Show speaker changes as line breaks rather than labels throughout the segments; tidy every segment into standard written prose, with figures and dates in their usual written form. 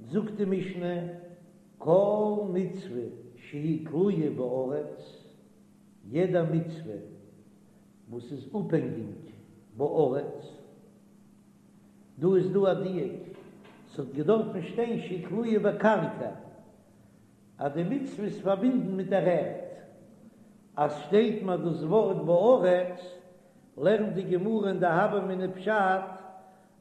זאגט די משנה, כל מצוה שהיא תלויה בארץ, יעדע מצוה וואס איז אפהענגיג בארץ, דא איז דא א דיוק, ס'האט געדארפן שטיין שהיא תלויה בקרקע, אז די מצוה איז פארבינדן מיט דער ערד. אז שטייט מיר דאס ווארט בארץ, לערנט די גמרא אין די הוה אמינא פשט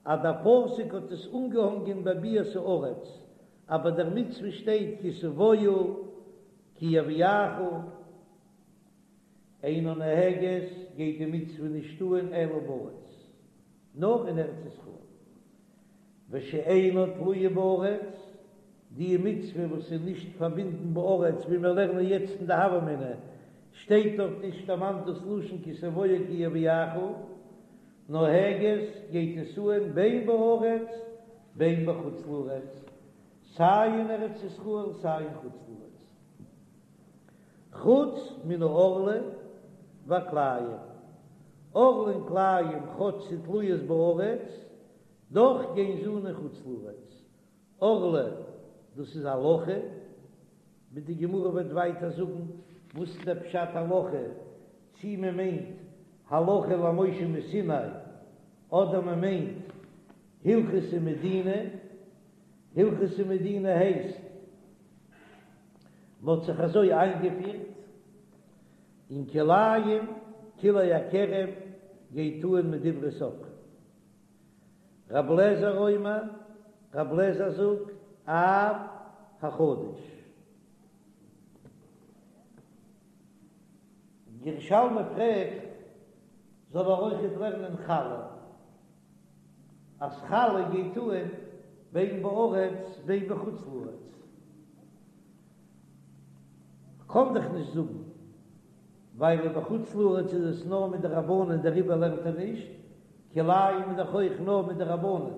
אז דער פסוק האט עס אנגעהאנגען בביאת הארץ, אבער דער מצוה שטייט כי תבואו כי יביאך. אינה נוהגת, גייט די מצוה נישט אן אלא בארץ, נאר אין ארץ ישראל. ושאינה תלויה בארץ, די מצוה וואס איז נישט פארבינדן בארץ, ווי מיר לערנען יעצט אין די הוה אמינא, שטייט דארט נישט דערמאנט דאס לשון כי תבואו כי יביאך, נוהגת גייט עס אן בין בארץ בין בחוץ לארץ, סיי אין ארץ ישראל סיי אין חוץ לארץ, חוץ מן הערלה והכלאים, ערלה און כלאים כאטש ס'איז תלויות בארץ, דאך גייען זיי אן אין חוץ לארץ, ערלה דאס איז הלכה, ווי די גמרא וועט ווייטער זאגן וואס איז דער פשט הלכה, צי מען מיינט הלכה למשה מסיני אדער מען מיינט הלכתא מדינה, הלכתא מדינה הייסט מען האט זיך אזוי איינגעפירט, און כלאים כלאי הכרם גייט אן מדברי סופרים. רב לעזער אומר, רב לעזער זאגט, אף החדש. ירושלמי פרעגט, זאל ער אויכעט לערנען חלה, אז חלה גייט אן בין בארץ בין בחוץ לארץ. כ'קען דאך נישט זאגן, ווייל בחוץ לארץ איז עס נאר מדרבנן דעריבער לערנט ער נישט, כלאים איז דאך אויך נאר מדרבנן.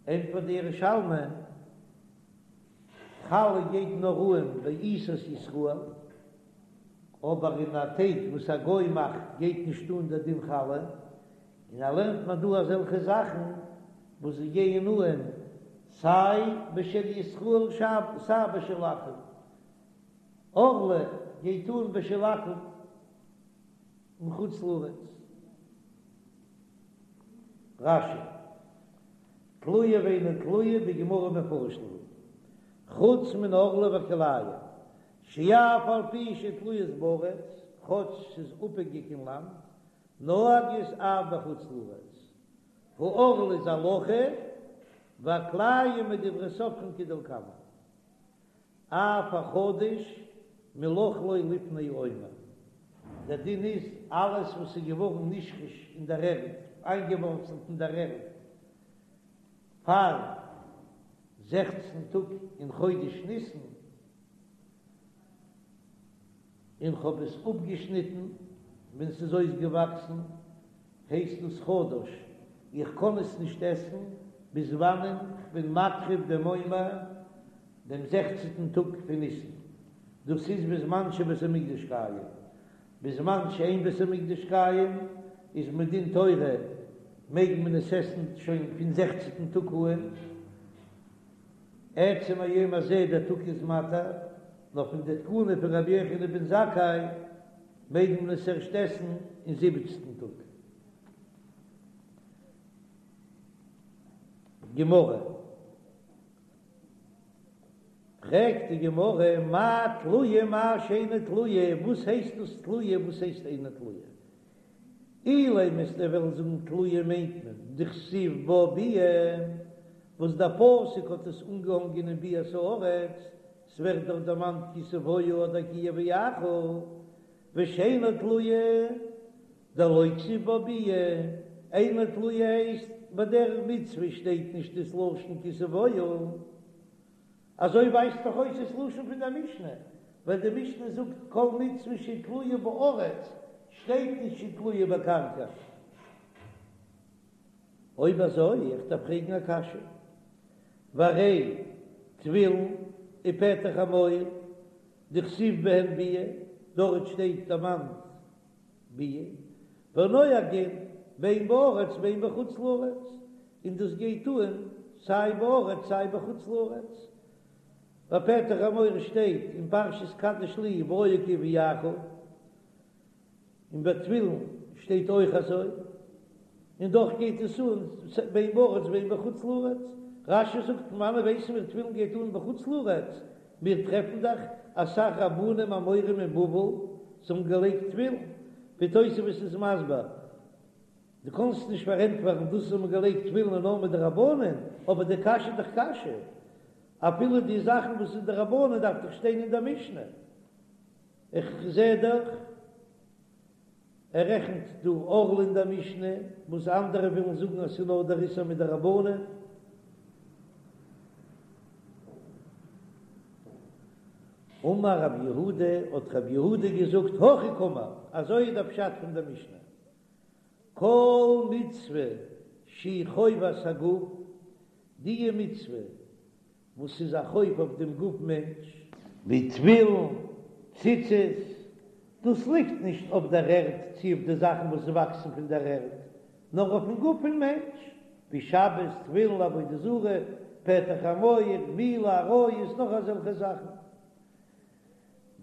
ענטפערט די ירושלמי, חלה גייט נאר אן בעיסת ישראל, אבער אין א טייג וואס א גוי מאכט גייט נישט אן דער דין חלה, און ער לערנט מיר דא אזעלכע זאכן וואס זיי גייען אן סיי בשל ישראל סיי בשל עכו"ם, ערלה גייט אן בשל עכו"ם אין חוץ לארץ. רש"י, תלויה ואינה תלויה בגמרא מפרש להו, חוץ מן הערלה והכלאים, שאף על פי שתלויות בארץ, כאטש ס'איז אפהענגיק אין לאנד, נוהגות אף בחוץ לארץ. הערלה איז הלכה, והכלאים מדברי סופרים כדלקמן. אף החדש מלאכלו לפני העומר, דער דין איז אלעס וואס איז געווארן נשרש אין דער ערד, איינגעווארצלט אין דער ערד, פאר זעכצן טאג אין חודש ניסן, און כ'האב עס אפגעשניטן ווען ס'איז אויסגעוואקסן, הייסט דאס חדש, איך קען עס נישט עסן ביז וואנען כ'בין מקריב דעם עומר דעם זעכצנטן טאג פון ניסן, דאס איז בזמן שבית המקדש קיים, בזמן שאין בית המקדש קיים איז מדין תורה מעג מען עס עסן שוין פון זעכצנטן טאג אן, עצם היום הזה דער טאג איז מתיר, נאר פון די תקנה פון רבי יוחנן בן זכאי מעג מען עס ערשט עסן אין זיבעצנטן טאג. גמרא. פרעגט די גמרא, מאי תלויה מאי שאינה תלויה, וואס הייסט דאס תלויה וואס הייסט אינה תלויה? אילימא וועסטו וועלן זאגן תלויה מיינט מען דכתיב בה ביאה, וואס דער פסוק האט עס אנגעהאנגען אין ביאת הארץ, ס'ווערט דארט דערמאנט כי תבואו אדער כי יביאך, ושאינה תלויה דלא כתיב בה ביאה, אינה תלויה הייסט ביי דער מצוה שטייט נישט דאס לשון כי תבואו. אזוי ווייזט דאך אויס דאס לשון פון דער משנה, ווייל די משנה זאגט כל מצוה שתלויה בארץ, שטייט נישט שתלויה בקרקע. אויב אזוי, איך דארף פרעגן א קשיא, והרי תפילין ופטר חמור דכתיב בהן ביאה, דארט שטייט דערמאנט ביאה, ונוהגין בין בארץ בין בחוץ לארץ, און דאס גייט אן. סיי בארץ סיי בחוץ לארץ. ביי פטר חמור שטייט אין פרשת קדש לי והיה כי יביאך, און ביי תפילין שטייט אויך אזוי, און דאך גייט עס אן בין בארץ בין בחוץ לארץ. רש"י זאגט פון וואנעט ווייסן מיר תפילין גייט אן בחוץ לארץ, מיר טרעפן דאך אסאך רבנים אמוראים אין בבל זיי האבן געלייגט תפילין, ווי תוספות איז מסביר, דו קאנסט נישט פארענטפערן דאס אז מ'האט געלייגט תפילין איז נאר מדרבנן, אבער די קשיא איז דאך קשיא, אפילו די זאכן וואס איז דרבנן דארף דאך שטיין אין דער משנה, איך זע דאך ער רעכנט דא ערלה אין דער משנה, וואס אנדערע ווילן זאגן אז ס'איז נאר דער איסור מדרבנן. אמר רב יהודה, האט רב יהודה געזאגט, הכי קאמר, אזוי איז דער פשט פון דער משנה, כל מצוה שהיא חובת הגוף, די מצוה וואס איז א חוב אויף דעם גוף מענטש, ווי תפילין, ציצית, דאס ליגט נישט אויף דער ערד צי אויף די זאכן וואס וואקסן פון דער ערד, נאר אויפן גוף פון מענטש, ווי שבת, תפילין, עבודה זרה, פטר חמור, מילה, עריות, נאך אזעלכע זאכן.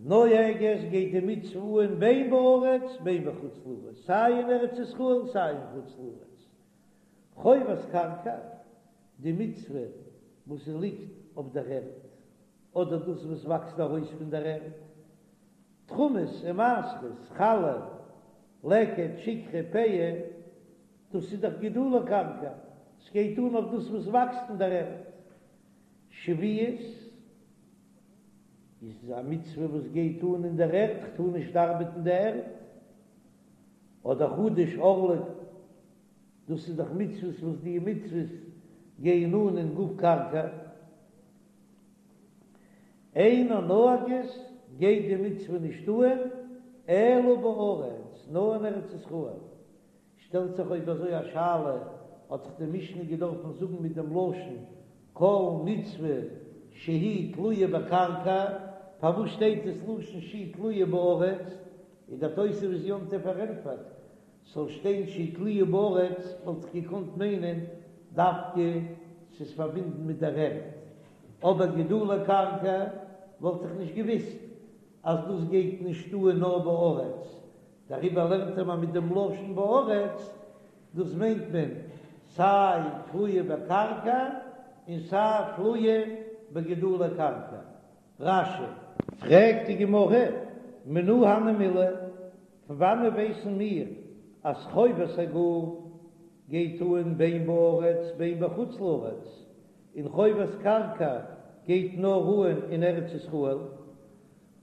נוהגת גייט די מצוה אן בין בארץ בין בחוץ לארץ, סיי אין ארץ ישראל סיי אין חוץ לארץ. חובת קרקע, די מצוה וואס ליגט אויף דער ערד, אדער דאס וואס וואקסט ארויס פון דער ערד, תרומות און מעשרות, חלה, לקט, שכחה, פאה, דאס איז דאך גידולי קרקע, ס'גייט אן אויף דאס וואס וואקסט אין דער ערד. שביעית איז א מצוה וואס גייט אן אין דער ערד, כ'טאר נישט ארבעטן די ערד, אדער חדש ערלה. דאס איז דאך מצוות וואס די מצוות גייען אן אין גוף קרקע, אינה נוהגת גייט די מצוה נישט אן אלא בארץ, נאר אין ארץ ישראל. שטעלט זיך אויב אזוי א שאלה, האט דאך די משנה געדארפן זאגן מיט דעם לשון כל מצוה שהיא תלויה בקרקע, פארוואס שטייט דאס לשון שהיא תלויה בארץ? איז דער תוספות יום טוב פארענטפערט ס'זאל שטיין שהיא תלויה בארץ וואלט איך געקאנט מיינען דווקא ס'איז פארבינדן מיט דער ערד, אבער גידולי קרקע וואלט איך נישט געוויסט אז דאס גייט נישט אן נאר בארץ, דעריבער לערנט ער מיר מיט דעם לשון בארץ, דאס מיינט מען סיי תלויה בקרקע און סיי תלויה בגידולי קרקע. רש"י. פרעגט די גמרא, מנא הני מילי, פון וואנעט ווייסן מיר אז חובת הגוף גייט אן בין בארץ בין בחוץ לארץ, און חובת קרקע גייט נאר אן אין ארץ ישראל?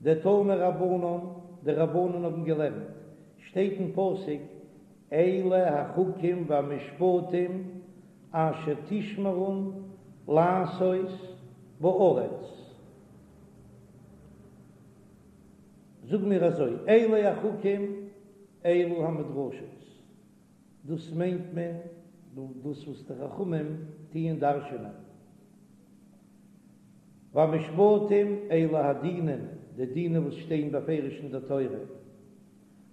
דתנו רבנן, די רבנן האבן געלערנט, שטייט אין פסוק, אלה החוקים והמשפטים אשר תשמרון לעשות בארץ. זאג מיר אזוי, אלה החוקים אלו המדרשות, דאס מיינט מען דאס וואס די חכמים טוען דרש'ענען, והמשפטים אלו הדינים, די דינים וואס שטייען בפירוש אין דער תורה,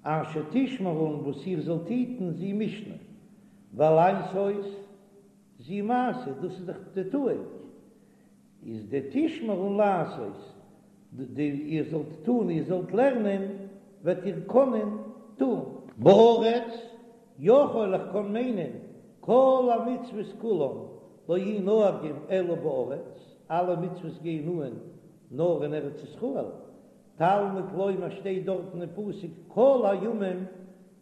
אשר תשמרון וואס איר זאלט היטן זו משנה, ולעשות זו מעשה, דאס איז דאך די טואונג, איז די תשמרון לעשות, די איר זאלט טון, איר זאלט לערנען, וועט איר קענען טון. בארץ, יכול איך קען מיינען, כל המצוות כולן לא יהו נוהגים אלא בארץ, אלע מצוות גייען אן נאר אין ארץ ישראל, תלמוד לומר שטייט דארטן אין פסוק כל הימים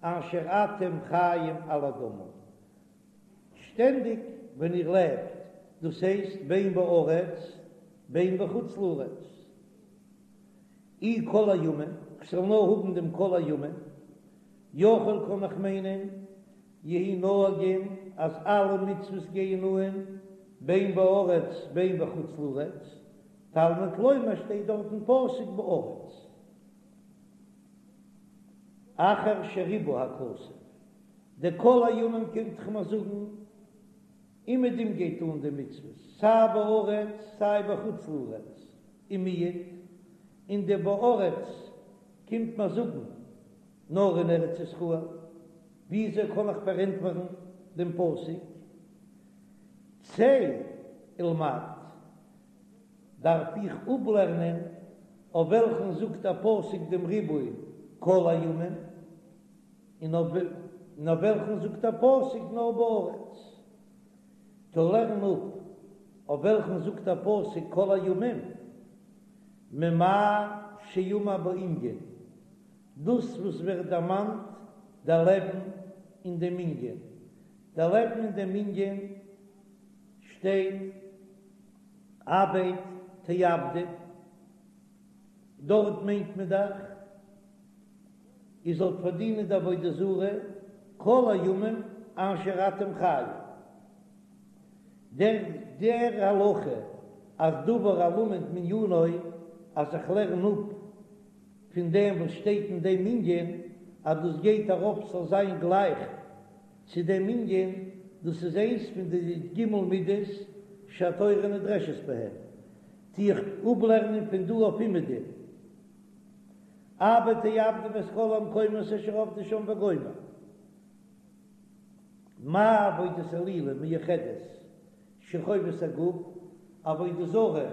אשר אתם חיים על האדמה, שטענדיג ווען איר לעבט, דאס הייסט בין בארץ בין בחוץ לארץ, אי כל הימים, כ'זאל נאר האבן דעם כל הימים, יכול קען איך מיינען יהו נוהגים אז אלע מצוות גייען אן בין בארץ בין בחוץ לארץ, תלמוד לומר שטייט דארט אין פסוק בארץ אחר שריבה הכתוב, די כל הימים קומט דאך מיר זאגן אומעדום גייט אן די מצוות סיי בארץ סיי בחוץ לארץ ומיעט, און די בארץ קומט מיר זאגן נאר אין ארץ ישראל, וויאזוי קען איך פארענטפערן דעם פסוק צא? ולמד, דארף איך אפלערנען אויף וועלכן זאגט דער פסוק דעם ריבוי כל הימים, און אויף וועלכן זאגט דער פסוק נאר בארץ. טא לערן אפ אויף וועלכן זאגט דער פסוק כל הימים, ממה שאמור בענין, דאס וואס ווערט דערמאנט דער לעבן אין דעם ענין, דער לעבן אין דעם ענין שטייט אבד תאבדון, דארט מיינט מען דאך איר זאלט פארדינען די עבודה זרה כל הימים אשר אתם חיים. דער דער הלכה אז דבר הלמד מענינו אז איך לערן אפ פון דעם וואס שטייט אין דעם ענין אז דאס גייט ארויף ס'זאל זיין גלייך צו דעם ענין, דאס איז איינס פון די ג' מידות שהתורה נדרשת בהן, טו איך אפלערנען פון דא אויף אומעדום. אבד תאבדון את כל המקומות אשר עבדו שם וגומר. מה עבודת אלילים מיוחדת שחובת הגוף, עבודה זרה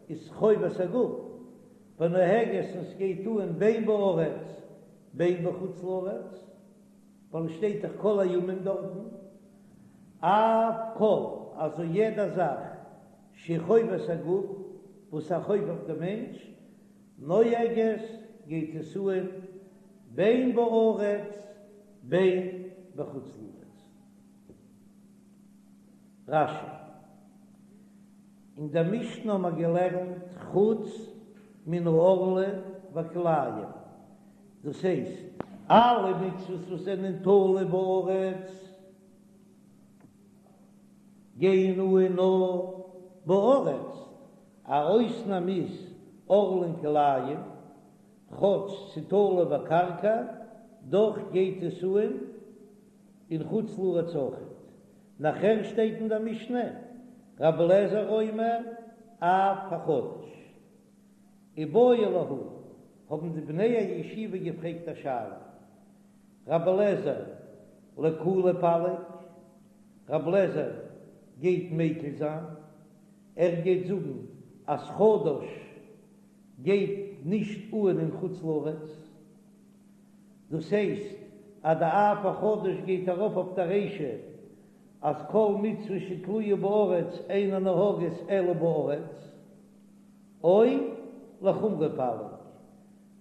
איז חובת הגוף, ונוהגת און ס'גייט אן בין בארץ בין בחוץ לארץ, ווייל עס שטייט דאך כל הימים דארטן, אף כל, אזוי יעדע זאך שחובת הגוף, וואס א חוב אויף די מענטש, נוהגת גייט עס אן בין בארץ בין בחוץ לארץ. רש"י, אין דער משנה האבן מיר געלערנט חוץ מן הערלה והכלאים, דאס הייסט, אלע מצוות וואס זענען תלוי בארץ גייען אן נאר בארץ, א אויסנאם איז ערלה און כלאים, כאטש ס'תלוי בקרקע, דאך גייט עס אן אין חוץ לארץ אויכעט. נאכער שטייט אין דער משנה, רבי אליעזר אומר אף החדש. איבעיא להו, האבן די בני הישיבה געפרעגט א שאלה, רבי אליעזר לקולא פליג, רבי אליעזר גייט מיקל זיין, ער גייט זאגן אז חדש גייט נישט אן אין חוץ לארץ, דאס הייסט אז די אף החדש גייט ארויף אויף די רישא אז כל מצוה שתלויה בארץ אינה נוהגת אלא בארץ, או לחומרא פליג.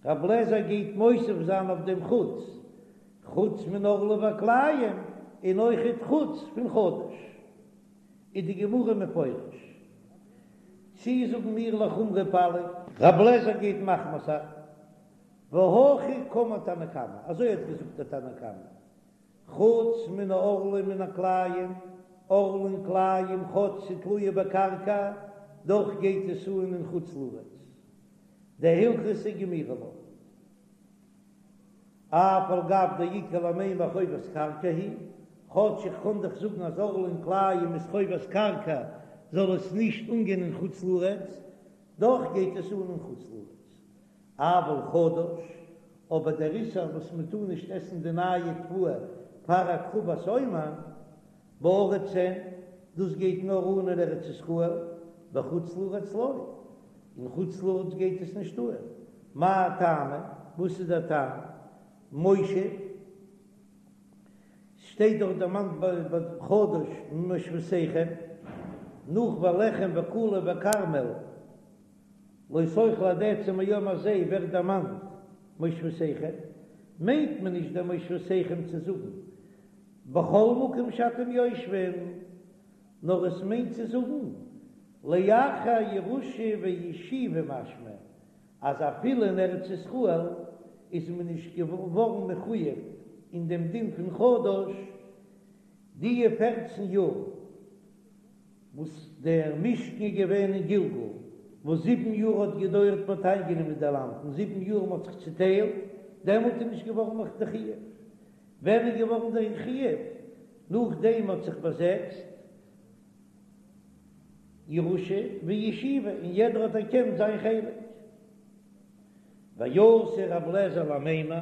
רבי אליעזר גייט מוסיף זיין אויף דעם חוץ, חוץ מן הערלה והכלאים, און אויכעט חוץ פון חדש. איז די גמרא מפרש. צי זאגן מיר לחומרא פליג. רבי אליעזר גייט מחמיר זיין. והכי קאמר תנא קמא, אזוי האט געזאגט דער תנא קמא, חוץ מן הערלה ומן הכלאים, ערלה און כלאים כאטש ס'תלויה בקרקע, דאך גייט עס אן אין חוץ לארץ. דהלכתא גמירי לה. אף על גב דאיכא למימר חובת קרקע היא, כאטש איך קען דאך זאגן אז ערלה און כלאים איז חובת קרקע זאל עס נישט אנגיין אין חוץ לארץ, דאך גייט עס אן אין חוץ לארץ. אבל חדש, אבער דער איסור וואס מען טאר נישט עסן די נייע תבואה פאר הקרבת עומר, בארץ אין, דאס גייט נאר אן אין ארץ ישראל, בחוץ לארץ לא, אין חוץ לארץ גייט עס נישט אן, מאי טעמא, וואס איז דער טעם? מושב, ס'שטייט דאך דערמאנט ביי חדש ממושבותיכם, נאך ולחם וקלי וכרמל, לא תאכלו עד עצם היום הזה ווערט דערמאנט מושבותיכם, מיינט מען נישט דער מושבותיכם צו זאגן בכל מקום שאתם יושבים, נאר עס מיינט צו זאגן לאחר ירושה וישיבה משמע אז אפילו אין ארץ ישראל איז מען נישט געווארן מחויב אין דעם דין פון חדש דיע פערצן יאר. וואס דער משכן איז געווען אין גלגל, וואס זיבן יאר האט געדויערט מען האט איינגענומען די לאנד, און זיבן יאר מען האט זיך צוטיילט, דעמאלט איז נישט געווארן נאך די חיוב. ווען איז געווארן דער חיוב? נאכדעם מען האט זיך באזעצט, ירושה וישיבה, און יעדער האט אנערקענט זיין חלק. ואתא רב לעזער למימר,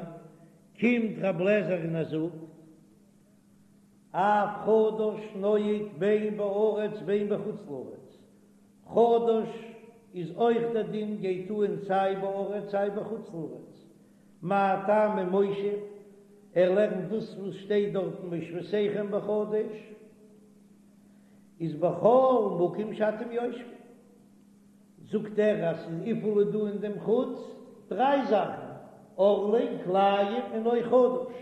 קומט רב לעזער און ער זאגט, אף חדש נוהג בין בארץ בין בחוץ לארץ. חדש איז אויך דער דין גייט אהן סיי בארץ סיי בחוץ לארץ. מאי טעמא מושב, ער לערנט דאס וואס שטייט דארטן מושבותיכם בחדש איז בכל מקום שאתם יושבים. זאגט ער אז ס'איז וויפיל איז דא אין דעם חוץ דריי זאכן, ערלה, כלאים און אויך חדש.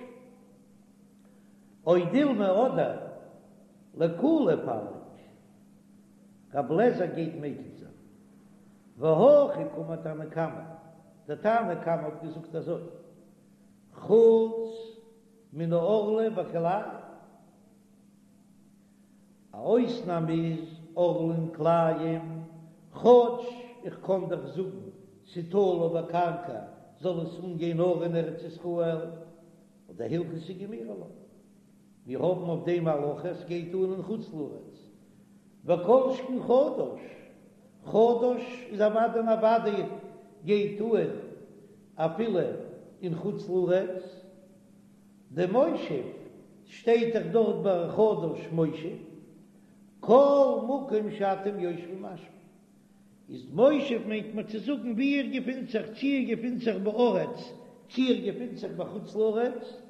או דילמא אדער לקולא פליג, רב לעזער גייט מקיל זיין. והכי קאמר תנא קמא, דער תנא קמא האט געזאגט אזוי, חוץ מן הערלה והכלאים. א אויסנאם איז ערלה און כלאים, כאטש איך קען דאך זאגן ס'תלוי בקרקע זאל עס אנגיין נאר אין ארץ ישראל, אבער הלכתא גמירי לה, מיר האבן אויף דעם א הלכה עס גייט אן אין חוץ לארץ, וכל שכן חדש, חדש איז אוודאי און אוודאי גייט אן אפילו אין חוץ לארץ. דמושב שטייט דאך דארט ביי חדש מושב, כל מקום שאתם יושבים משמע איז מושב מיינט מען צו זאגן ווי איר געפינט זיך, צי איר געפינט זיך בארץ צי איר געפינט זיך בחוץ לארץ,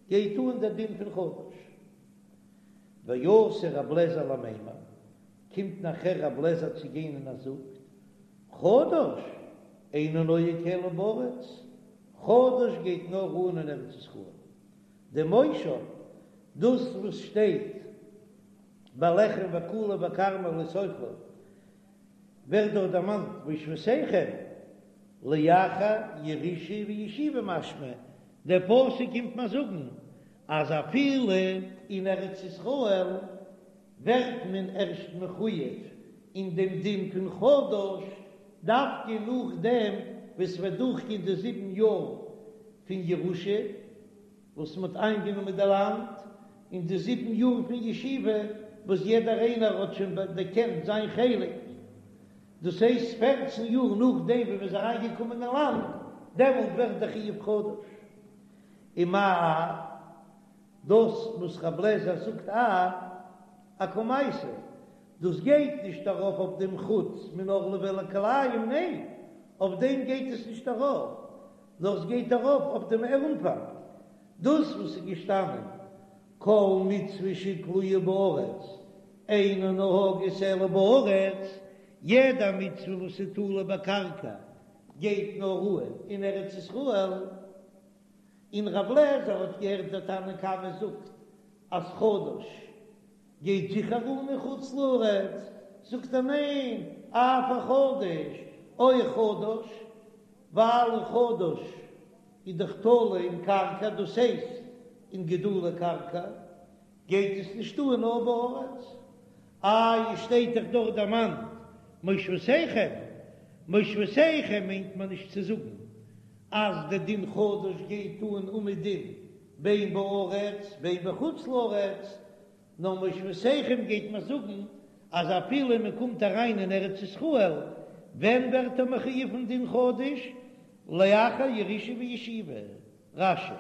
גייט אן דער דין פון חדש. ואתא רב לעזער למימר, קומט נאכער רב לעזער צו גיין און ער זאגט, חדש אינו נוהג אלא בארץ, חדש גייט נאר אן אין ארץ ישראל. דמושב, דאס וואס שטייט בלחם וקלי וכרמל לא תאכלו, ווערט דארט דערמאנט מושבותיכם, לאחר ירושה וישיבה משמע, דער פסוק קומט מיר זאגן אז אפילו אין ארץ ישראל ווערט מען ערשט מחויב אין דעם דין פון חדש דווקא נאכדעם וואס ס'וועט דורכגיין די זיבן יאר פון ירושה וואס מ'האט איינגענומען די לאנד, און די זיבן יאר פון ישיבה וואס יעדער איינער האט שוין דערקענט זיין חלק, דאס הייסט פערצן יאר נאכדעם ווי מ'איז אריינגעקומען אין לאנד, דעמאלט ווערט דער חיוב חדש. ומאי דאס וואס רב לעזער זאגט א אקמייתא, דאס גייט נישט ארויף אויף דעם חוץ מן הערלה והכלאים, ניין, אויף דעם גייט עס נישט ארויף, נאר עס גייט ארויף אויף דעם אנפאנג, דאס וואס איז געשטאנען כל מצוה שתלויה בארץ אינה נוהגת אלא בארץ, יעדע מצוה וואס איז תלוי בקרקע גייט נאר אן אין ארץ ישראל. און רב לעזער האט געהערט דער תנא קמא זאגט אז חדש גייט זיכער אן אין חוץ לארץ, זאגט ער ניין, אף החדש, אויך חדש, ווייל חדש איז דאך תלוי אין קרקע, דאס הייסט אין גידולי קרקע, גייט עס נישט אן נאר בארץ. איי שטייט דאך דארט דערמאנט מושבותיכם, מושבותיכם מיינט מען נישט צו זאגן אז די דין חדש גייט אן אומעדום בין בארץ בין בחוץ לארץ, נאר מושבותיכם גייט מען זאגן אז אפילו מען קומט אריין אין ארץ ישראל, ווען ווערט ער מחויב פון דין חדש? לאחר ירושה וישיבה. רש"י.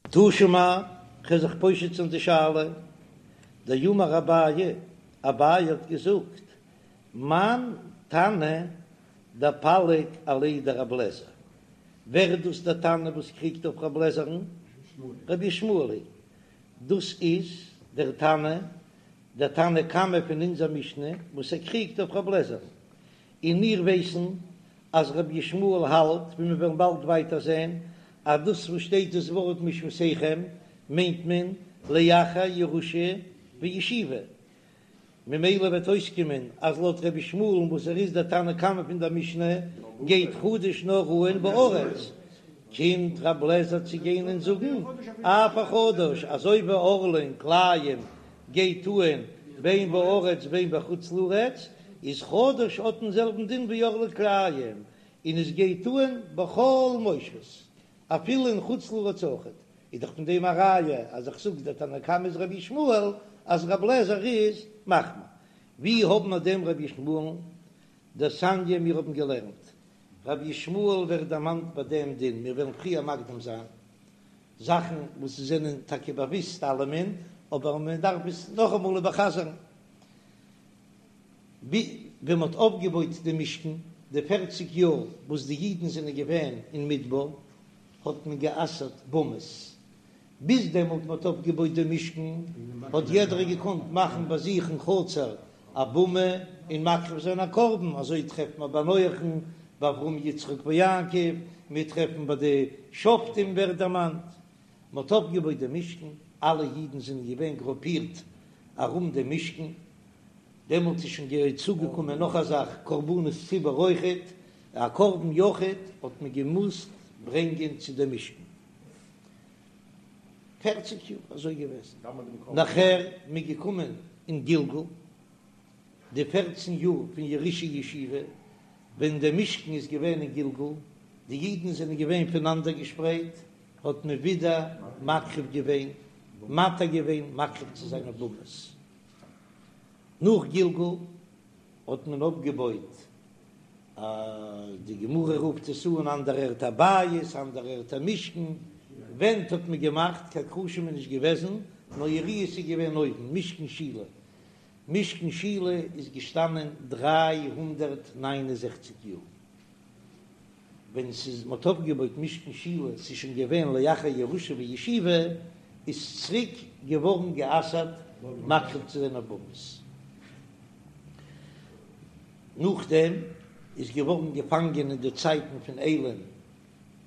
תא שמע, כ'וועל זיך פושט זיין די שאלה, דאמר אביי, אביי האט געזאגט, מאן תנא דפליג עליה דרב לעזער, ווער איז דאס דער תנא וואס קריגט אויף רב לעזער'ן? רבי ישמעאל היא, דאס איז דער תנא, דער תנא קמא פון אונזער משנה וואס ער קריגט אויף רב לעזער'ן, און מיר ווייסן אז רבי ישמעאל האלט, ווי מיר וועלן באלד ווייטער זען, אז דאס וואס שטייט דאס ווארט מושבותיכם מיינט מען לאחר ירושה וישיבה, ממילא וועט אויסקומען אז לויט רבי ישמעאל'ן וואס ער איז דער תנא קמא פון דער משנה גייט חדש נאר אן בארץ, קומט רב לעזער צו גיין און זאגן אף החדש אזוי ווי ערלה און כלאים גייט אן בין בארץ בין בחוץ לארץ, איז חדש האט דעם זעלבן דין ווי ערלה כלאים, און עס גייט אן בכל מושבות, אפילו אין חוץ לארץ אויכעט, איז דאך פון דעם א ראיה אז איך זאג דער תנא קמא איז רבי ישמעאל אז רב לעזער איז מחמיר. ווי האבן מיר דעם רבי ישמעאל'ן? דתניא מיר האבן געלערנט רבי ישמעאל ווערט דערמאנט ביי דעם דין, מיר וועלן פריער מקדים זיין. זאכן וואס זענען טאקע באוויסט אלעמען, אבער מען דארף עס נאכאמאל איבערחזר'ן. ווען מען האט אויפגעבויט די משכן, די פערציג יאר וואס די אידן זענען געווען אין מדבר, האט מען גע'אסר'ט במות. ביז דעמאלט מען האט אויפגעבויט די משכן, האט יעדער געקאנט מאכן ביי זיך אין חצר א במה און מקריב זיין א קרבן, אזוי טרעפט מען ביי נח'ן, ביי אברהם יצחק ויעקב, מיר טרעפן ביי די שופטים ווערט דערמאנט. מען האט אויפגעבויט די משכן, אלע אידן זענען געווען גרופירט ארום דעם משכן, דעמאלט איז שוין צוגעקומען נאך א זאך, קרבנות ציבור אויכעט, א קרבן יחיד האט מען געמוזט ברענגען צו דעם משכן. פערציג יאר אזוי געוועזן, נאכער מ'איז געקומען אין גלגל, די פערצן יאר פון ירושה ישיבה, ווען דער משכן איז געווען אין גלגל, די אידן זענען געווען פונאנדערגעשפרייט, האט מען ווידער מקריב געווען, מתיר געווען מקריב צו זיין אויף במות. נאך גלגל האט מען אויפגעבויט א, די גמרא רופט עס אן אנדערע ערטער א בית, אנדערע ערטער משכן, ווענט האט מען געמאכט, קיין קרשים איז נישט געוועזן, נאר יריעות איז געווען אויבן, משכן שילה, משכן שילה איז געשטאנען 369 יאר. ווען ס'איז מ'האט אויפגעבויט משכן שילה, ס'איז שוין געווען לאחר ירושה וישיבה, איז צוריק געווארן גע'אסר'ט מקריב צו זיין אויף במות. נאכדעם איז געווארן געפאנגען אין די צייטן פון עלי'ן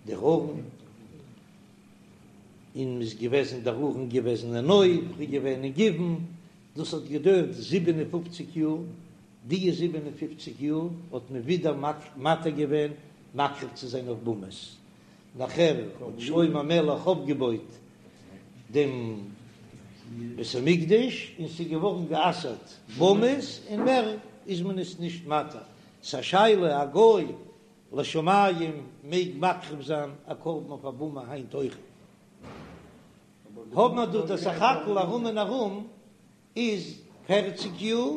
דער ארון, און מ'איז געוועזן דער ארון געוועזן אין נוב, איז געווען אין גבעון, דאס האט געדויערט 57 יאר, די 57 יאר האט מען ווידער מתיר געווען מקריב צו זיין אויף במות, נאכער האט שלמה המלך אויפגעבויט דעם בית המקדש און ס'איז געווארן גע'אסר'ט במות און מער איז מען עס נישט מתיר, ס'א שאלה א גוי לשמים מעג מקריב זיין א קרבן אויף א במה היינט אויכעט? האבן מיר דא די סך הכל ארום און ארום איז פערציג יאר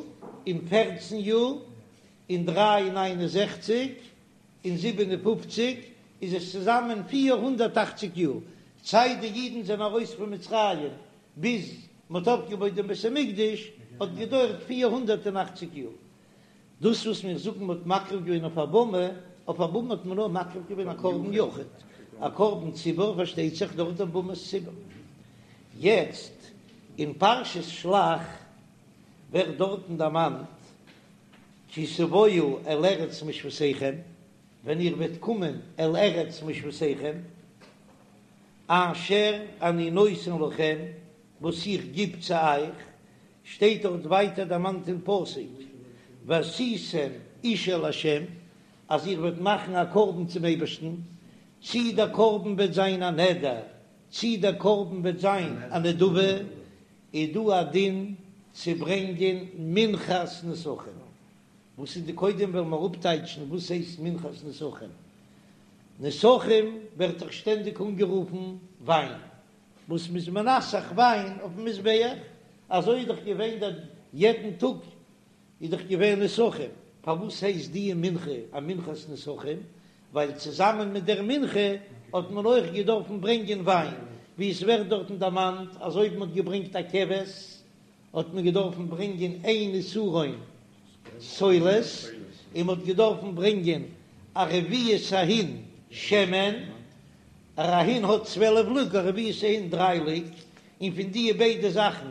און פערצן יאר און דריי און ניין און זעכציג און זיבן און פופציג איז עס צוזאמען 480 יאר זייט די אידן זענען ארויס פון מצרים ביז מען האט אויפגעבויט דעם בית המקדש האט געדויערט 480 יאר. דאס וואס מיר זאגן מען האט מקריב געווען אויף א במה, אויף א במה האט מען נאר מקריב געווען א קרבן יחיד, א קרבן ציבור פארשטייט זיך דורך דעם במת ציבור. יעצט אין פרשת שלח ווערט דארטן דערמאנט כי תבואו אל ארץ מושבותיכם, ווען איר וועט קומען אל ארץ מושבותיכם, אשר אני נותן לכם, וואס איך גיב צו אייך, שטייט דארט ווייטער דערמאנט אין פסוק, ועשיתם אשה לה', אז איר וועט מאכן א קרבן צום אייבערשטן, צי דער קרבן וועט זיין א נדר, צי דער קרבן וועט זיין א נדבה, איז דא א דין צו ברענגען מנחת נסכים. וואס איז די קודם וועלן מיר אפטייטשן וואס הייסט מנחת נסכים. נסכים ווערט דאך שטענדיג אנגערופן וויין, וואס מ'איז מנסך וויין אויפן מזבח, אזוי איז דאך געווען דער יעדן טאג איז דאך געווען נסכים, פארוואס הייסט די מנחה א מנחת נסכים? ווייל צוזאמען מיט דער מנחה האט מען אויך געדארפן ברענגען וויין, ווי עס ווערט דארטן דערמאנט אז אויב מ'האט געברענגט א כבש האט מען געדארפן ברענגען איין עשרון סולת, און מ'האט געדארפן ברענגען א רביעית ההין שמן, א ההין האט צוועלף לוג, א רביעית ההין דריי לוג, און פון די ביידע זאכן,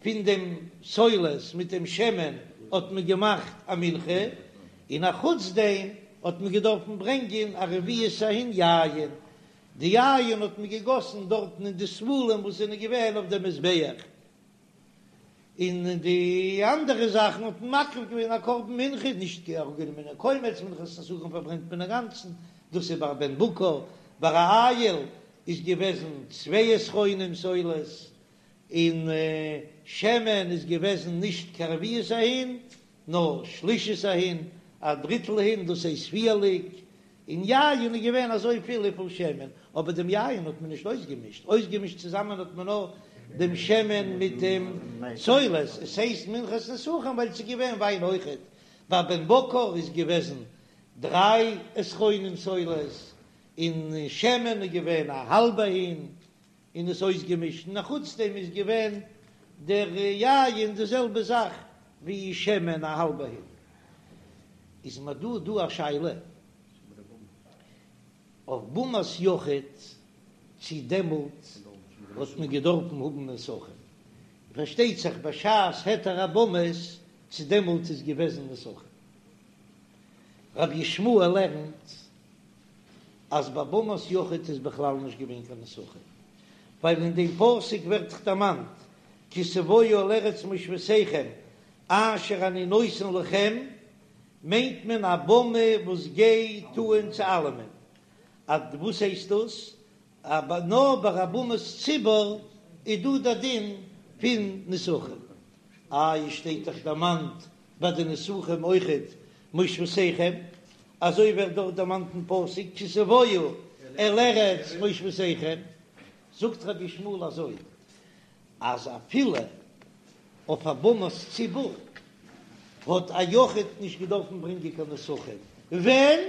פון דעם סולת מיט דעם שמן האט מען געמאכט א מנחה, און א חוץ דעם האט מען געדארפן ברענגען א רביעית ההין יין, די יין האט מען געגאסן דארטן אין די ספלים וואס זענען געווען אויף דעם מזבח. און די אנדערע זאכן האט מען מקריב געווען א קרבן מנחה, נישט אראפגענומען א קומץ, מנחת נסכים פארברענט מען אינגאנצן, דאס איז ביי א בן בקר, ביי א איל איז געוועזן צוויי עשרונים סולת, און שמן איז געוועזן נישט קיין רביעית ההין, נאר שלישית ההין, א דריטל הין, דאס הייסט פיר לוג, און יין איז געווען אזוי פיל וויפיל שמן, אבער דעם יין האט מען נישט אויסגעמישט, אויסגעמישט צוזאמען האט מען נאר דעם שמן מיט דעם סולת, עס הייסט מנחת נסכים ווייל עס איז געווען וויין אויכעט, ביי בן בקר איז געוועזן דריי עשרונים סולת, און שמן איז געווען א האלבע הין. און עס אויסגעמישט, און אחוץ דעם איז געווען דער יין די זעלבע זאך ווי שמן א האלבע הין. איז מיר דא דא א שאלה אויף במת יחיד צי דעמאלט האט מען געדארפן האבן נסכים, פארשטייט זיך בשעת היתר הבמות צי דעמאלט איז געוועזן נסכים. רבי ישמעאל לערנט אז ביי במת יחיד איז בכלל נישט געווען קיין נסכים, ווייל אין דעם פסוק ווערט דאך דערמאנט כי תבואו אל ארץ מושבותיכם אשר אני נותן לכם, מיינט מען א במה וואס גייט אן צו אלעמען. אז וואס הייסט דאס? אבער נאר ביי א במת ציבור איז דא דער דין פון נסכים. איי עס שטייט דאך דערמאנט ביי די נסכים אויכעט מושבותיכם, אזוי ווערט דארט דערמאנט אין פסוק כי תבואו אל ארץ מושבותיכם, זאגט רבי ישמעאל אזוי אז אפילו אויף א במת ציבור האט א יחיד נישט געדארפן ברענגען קיין נסכים, ווען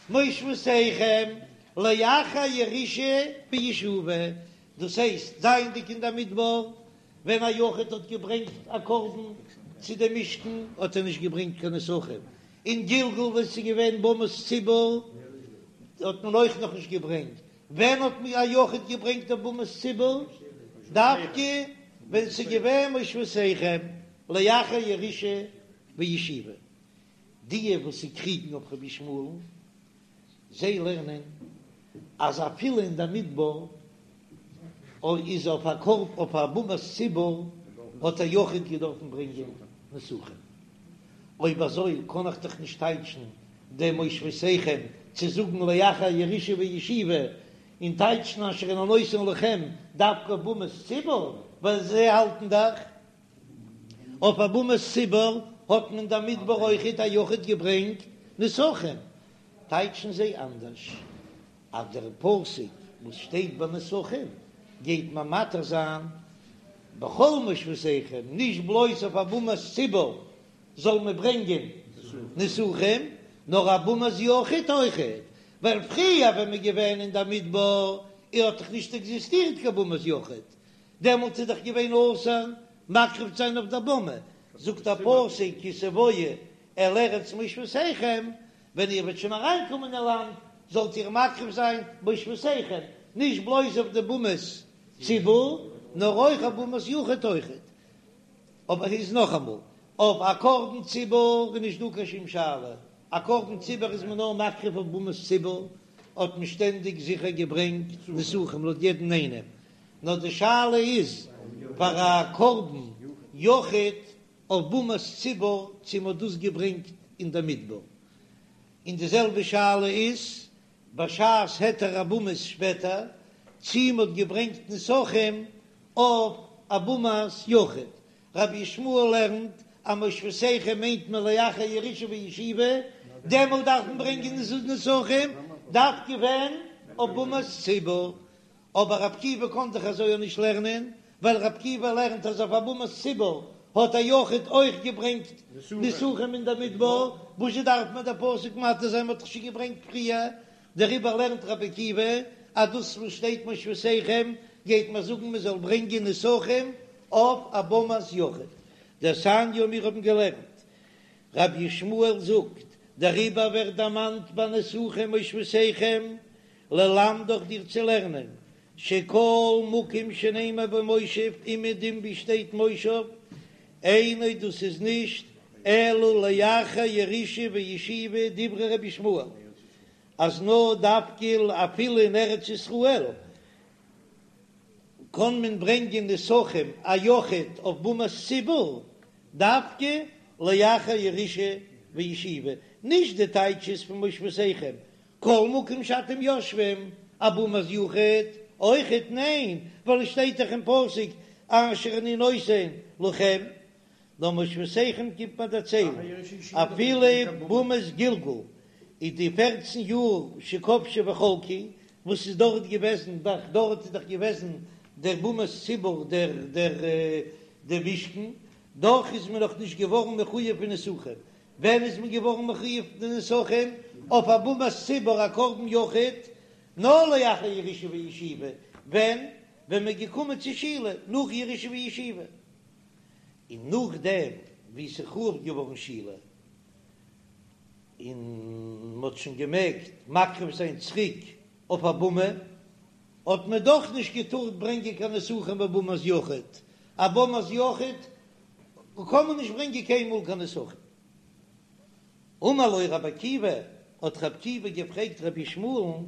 מושבותיכם לאחר ירושה וישיבה, דאס הייסט זייענדיג אין דער מדבר ווען א יחיד האט געברענגט א קרבן צו דעם משכן האט ער נישט געברענגט קיין נסכים, אין גלגל ווען ס'איז געווען במת ציבור האט מען אויך נאכנישט געברענגט, ווען האט א יחיד געברענגט אויף במת ציבור? דווקא ווען ס'איז געווען מושבותיכם לאחר ירושה וישיבה. די וואס ס'קריגן אויף רבי ישמעאל'ן, זיי לערנען אז אפילו אין די מדבר איז אויף א קרבן אויף א במת ציבור האט א יחיד געדארפן ברענגען נסכים. אויב אזוי קען איך דאך נישט טייטשן דעם מושבותיכם צו זאגן לאחר ירושה וישיבה, און טייטשן אשר אני נותן לכם דווקא אויף במת ציבור, ווייל זיי האלטן דאך אויף א במת ציבור האט מען אין די מדבר אויכעט א יחיד געברענגט נסכים, טייטשן זיי אנדערש אז דער פסוק וואס שטייט ביי נסכים גייט מען מתיר זיין בכל מושבותיכם, נישט בלויז אויף א במת ציבור זאל מען ברענגען נסכים, נאר א במת יחיד אויכעט, ווייל פריער ווען מ'איז געווען אין די מדבר האט דאך נישט עקזיסטירט קיין במת יחיד, דעמאלט איז דאך געווען אסור מקריב צו זיין אויף דער במה, זאגט דער פסוק כי תבואו אל ארץ מושבותיכם, ווען איר וועט שוין אריינקומען אין לאנד זאלט איר מקריב זיין מושבותיכם, נישט בלויז אויף די במת ציבור, נאר אויך אויף במת יחיד אויכעט. אבער איז נאכאמאל, אויף א קרבן ציבור איז נישט דא קיין שום שאלה, א קרבן ציבור איז מען נאר מקריב אויף במת ציבור, האט מען שטענדיג זיכער געברענגט נסכים לויט יעדן איינעם, נאר די שאלה איז פאר א קרבן יחיד אויף במת ציבור צו מ'האט דאס געברענגט אין די מדבר, און די זעלבע שאלה איז בשעת היתר הבמות שפעטער צו מ'האט געברענגט נסכים אויף א במת יחיד. רבי ישמעאל לערנט אז מושבותיכם מיינט מען לאחר ירושה וישיבה, דעמאלט דארף מען ברענגען נסכים דווקא ווען אויף במת ציבור, אבער רבי עקיבא קען דאך אזוי אויך נישט לערנען, ווייל רבי עקיבא לערנט אז אויף א במת ציבור האט א יחיד אויך געברענגט נסכים אין דער מדבר, וואזשע דארף מען דער פסוק מתיר זיין מ'האט דאך שוין געברענגט פריער, דעריבער לערנט רבי עקיבא אז דאס וואס שטייט מושבותיכם גייט מען זאגן מען זאל ברענגען נסכים אויף א במת יחיד. דתניא מיר האבן געלערנט רבי ישמעאל זאגט, דעריבער ווערט דערמאנט ביי נסכים מושבותיכם ללמדך דיר צו לערנען, שכל מקום שנאמר בו מושב אומעדום ווי שטייט מושב, אינו דאס איז נישט אלא לאחר ירושה וישיבה דברי רבי ישמעאל, אז נאר דווקא אפילו אין ארץ ישראל קען מען ברענגען נסכים א יחיד אויף במת ציבור דווקא לאחר ירושה וישיבה, נישט די טייטש איז פון מושבותיכם כל מקום שאתם יושבים, א במת יחיד אויכעט? ניין, ווייל עס שטייט דאך אין פסוק אשר אני נותן לכם, נאר מושבותיכם קומט מען דערציילן אפילו במת גלגל איז די פערצן יאר שכבשו וחלקו וואס איז דארט געוועזן דאך דארט איז דאך געוועזן דער במת ציבור דער דער דער משכן דאך איז מען נאך נישט געווארן מחויב פון נסכים ווען איז מען געווארן מחויב די נסכים אויף א במת ציבור א קרבן יחיד? נאר לאחר ירושה וישיבה, ווען? ווען מ'איז געקומען צו שילה נאך ירושה וישיבה, און נאכדעם ווי ס'איז חרוב געווארן שילה און מ'האט שוין געמעגט מקריב זיין צוריק אויף א במה, האט מען דאך נישט געטארט ברענגען קיין נסכים בבמת יחיד, א במת יחיד קען מען נישט ברענגען קיינמאל קיין נסכים. אמר לו רבי עקיבא, האט רבי עקיבא געפרעגט רבי ישמעאל'ן,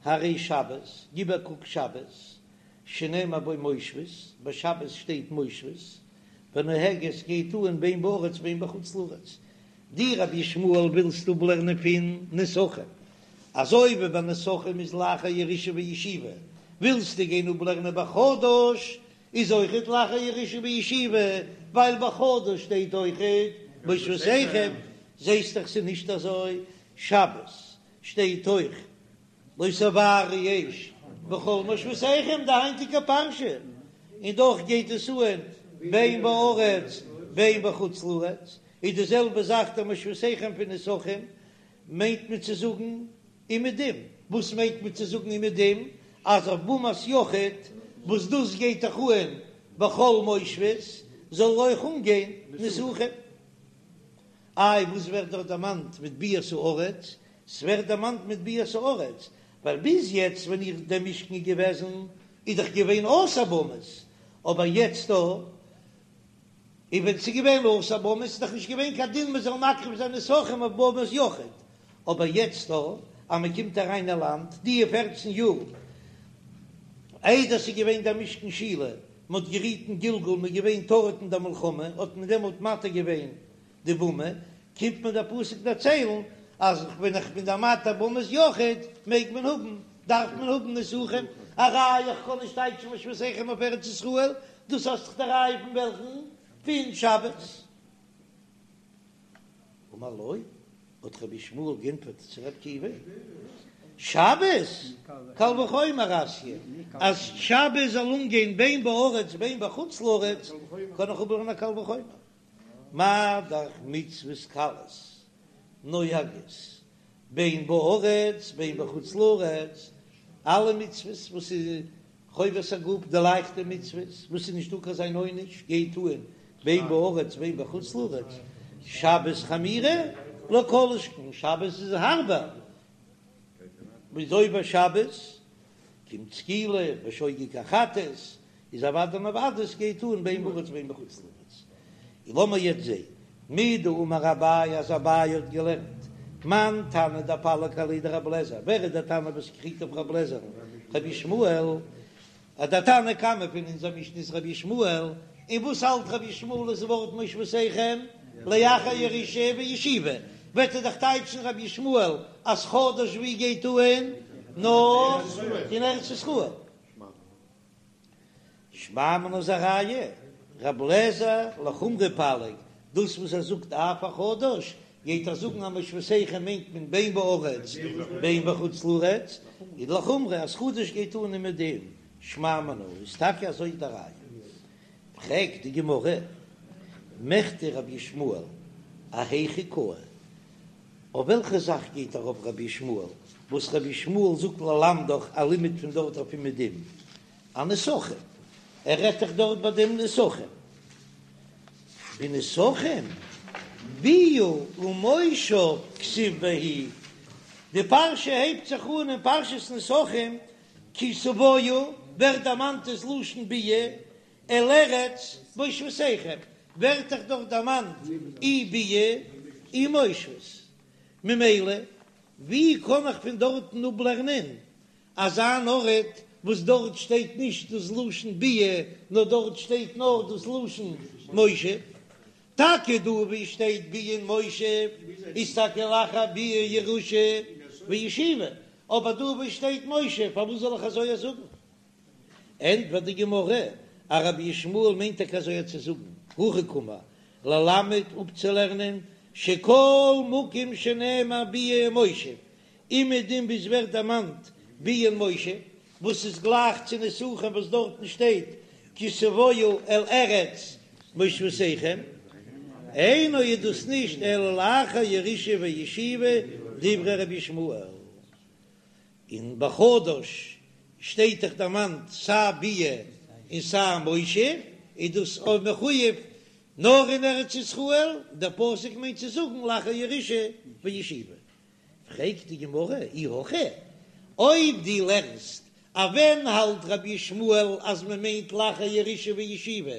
הרי שבת, גיב א קוק שבת, שנאמר בו מושבות, ביי שבת שטייט מושבות, ונוהגת גייט אן בין בארץ בין בחוץ לארץ, דו רבי ישמעאל ווילסט אפלערנען פון נסכים, אזוי ווי ביי נסכים איז לאחר ירושה וישיבה, ווילסטו גיין אפלערנען ביי חדש איז אויכעט לאחר ירושה וישיבה, ווייל ביי חדש שטייט אויכעט מושבותיכם, זעסט דאך ס'איז נישט אזוי, שבת שטייט אויך לא תבערו אש בכל מושבותיכם די היינטיגע פרשה, און דאך גייט עס אן בין בארץ בין בחוץ לארץ, איז די זעלבע זאך די מושבותיכם פון נסכים מיינט מען צו זאגן אומעדום, וואס מיינט מען צו זאגן אומעדום? אז אויף במת יחיד וואס דאס גייט דאך אן בכל מושבות זאל אויך אנגיין נסכים. איי וואס ווערט דארט דערמאנט מיט ביאת הארץ? ס'ווערט דערמאנט מיט ביאת הארץ ווייל ביז יעצט ווען איך דער משכן איז געוועזן איז דאך געווען אסור במות, אבער יעצט דא און ווען ס'איז געווען אסור במות איז דאך נישט געווען קיין דין מ'זאל מקריב זיין נסכים אויף במת יחיד, אבער יעצט דא אז מ'קומט אריין אין לאנד די פערצן יאר איידער ס'איז געווען דער משכן שילה, מ'האט גערוט אין גלגל, מ'איז געווען טרוד אין דער מלחמה, האט מען דעמאלט מתיר געווען די במה, קומט מיר דער פסוק דערציילן אז ווען איך בין דער מתיר במת יחיד מעג מען האבן, דארף מען האבן נסכים, א ראיה איך קען נישט טייטשן מושבותיכם אויף ארץ ישראל, דאס האסט דאך די ראיה פון וועלכן? פון שבת. אמר לו, האט רבי ישמעאל גענטפערט צו רבי עקיבא, שבת קל וחומר אתיא, אז שבת זאל אנגיין בין בארץ בין בחוץ לארץ, קען איך אפלערנען א קל וחומר. מה דאך מצוות קלות נוהגות בין בארץ בין בחוץ לארץ, אלע מצוות וואס איז חובת הגוף, די לייכטע מצוות וואס איז נישטא קיין זיין עונש, גייט אן בין בארץ בין בחוץ לארץ, שבת חמירא לא כל שכן שבת איז הארבער, מ'איז עובר שבת קומט סקילה בשוגג א חטאת, איז אוודאי און אוודאי עס גייט אן בין בארץ בין בחוץ לארץ. און לאמיר יעצט זעהן מדאמר אביי אז אביי האט געלערנט מאן תנא דפליג עליה דרבי אליעזר, ווער איז דער תנא וואס קריגט אויף רבי אליעזר'ן? רבי ישמעאל, אז דער תנא קמא פון אונזער משנה איז רבי ישמעאל, און וואס האלט רבי ישמעאל איז ווארט מושבותיכם לאחר ירושה וישיבה, וועט ער דאך טייטשן רבי ישמעאל אז חדש ווי גייט אן נאר אין ארץ ישראל. שמע מינה איז א ראיה, רב לעזער לחומרא פליג, דאס וואס ער זאגט אף החדש, גייט ער זאגן אז מושבותיכם מיינט מען בין בארץ בין בחוץ לארץ, איז לחומרא אז חדש גייט אן אומעדום, שמע מינה איז טאקע אזוי די ראיה. פרעגט די גמרא, מכדי רבי ישמעאל אהיכא קאי, אויף וועלכע זאך גייט ארויף רבי ישמעאל, וואס רבי ישמעאל זאגט ללמדך א לימוד פון דארט אויף אומעדום, אנסכים, ער רעדט דאך דארט ביי דעם נסכים, בנסכים ביאה ומושב כתיב בהו, די פרשה הייבט זיך אן אין פרשת נסכים, כי תבואו, ווערט דערמאנט דאס לשון ביאה, אל ארץ מושבותיכם, ווערט דאך דארט דערמאנט אי ביאה אי מושבות, ממילא ווי קען איך פון דארטן אפלערנען אזא אן ארט וואס דארט שטייט נישט דאס לשון ביאה נאר דארט שטייט נאר דאס לשון מושב? טאקע דא ווי שטייט ביאה און מושב איז טאקע לאחר ביאה ירושה וישיבה, אבער דא ווי שטייט מושב פארוואס זאל איך אזוי זאגן? ענטפערט די גמרא, אז רבי ישמעאל מיינט טאקע אזוי צו זאגן, הכי קאמר, ללמד אפצולערנען שכל מקום שנאמר ביאה ומושב, אומעדום ווי עס ווערט דערמאנט ביאה און מושב, וואס איז גלייך צו נסכים וואס דארטן שטייט כי תבואו אל ארץ מושבותיכם, אינו איז דאס נישט אלא לאחר ירושה וישיבה דברי רבי ישמעאל. און בחדש. שטייט דאך דערמאנט סיי ביאה און סיי מושב, איז דאס אויב מחויב נאר אין ארץ ישראל, דער פסוק מיינט צו זאגן לאחר ירושה וישיבה. פרעגט די גמרא, אי הכי, אויב דו לערנסט אז ווען האלט רבי ישמעאל אז מען מיינט לאחר ירושה וישיבה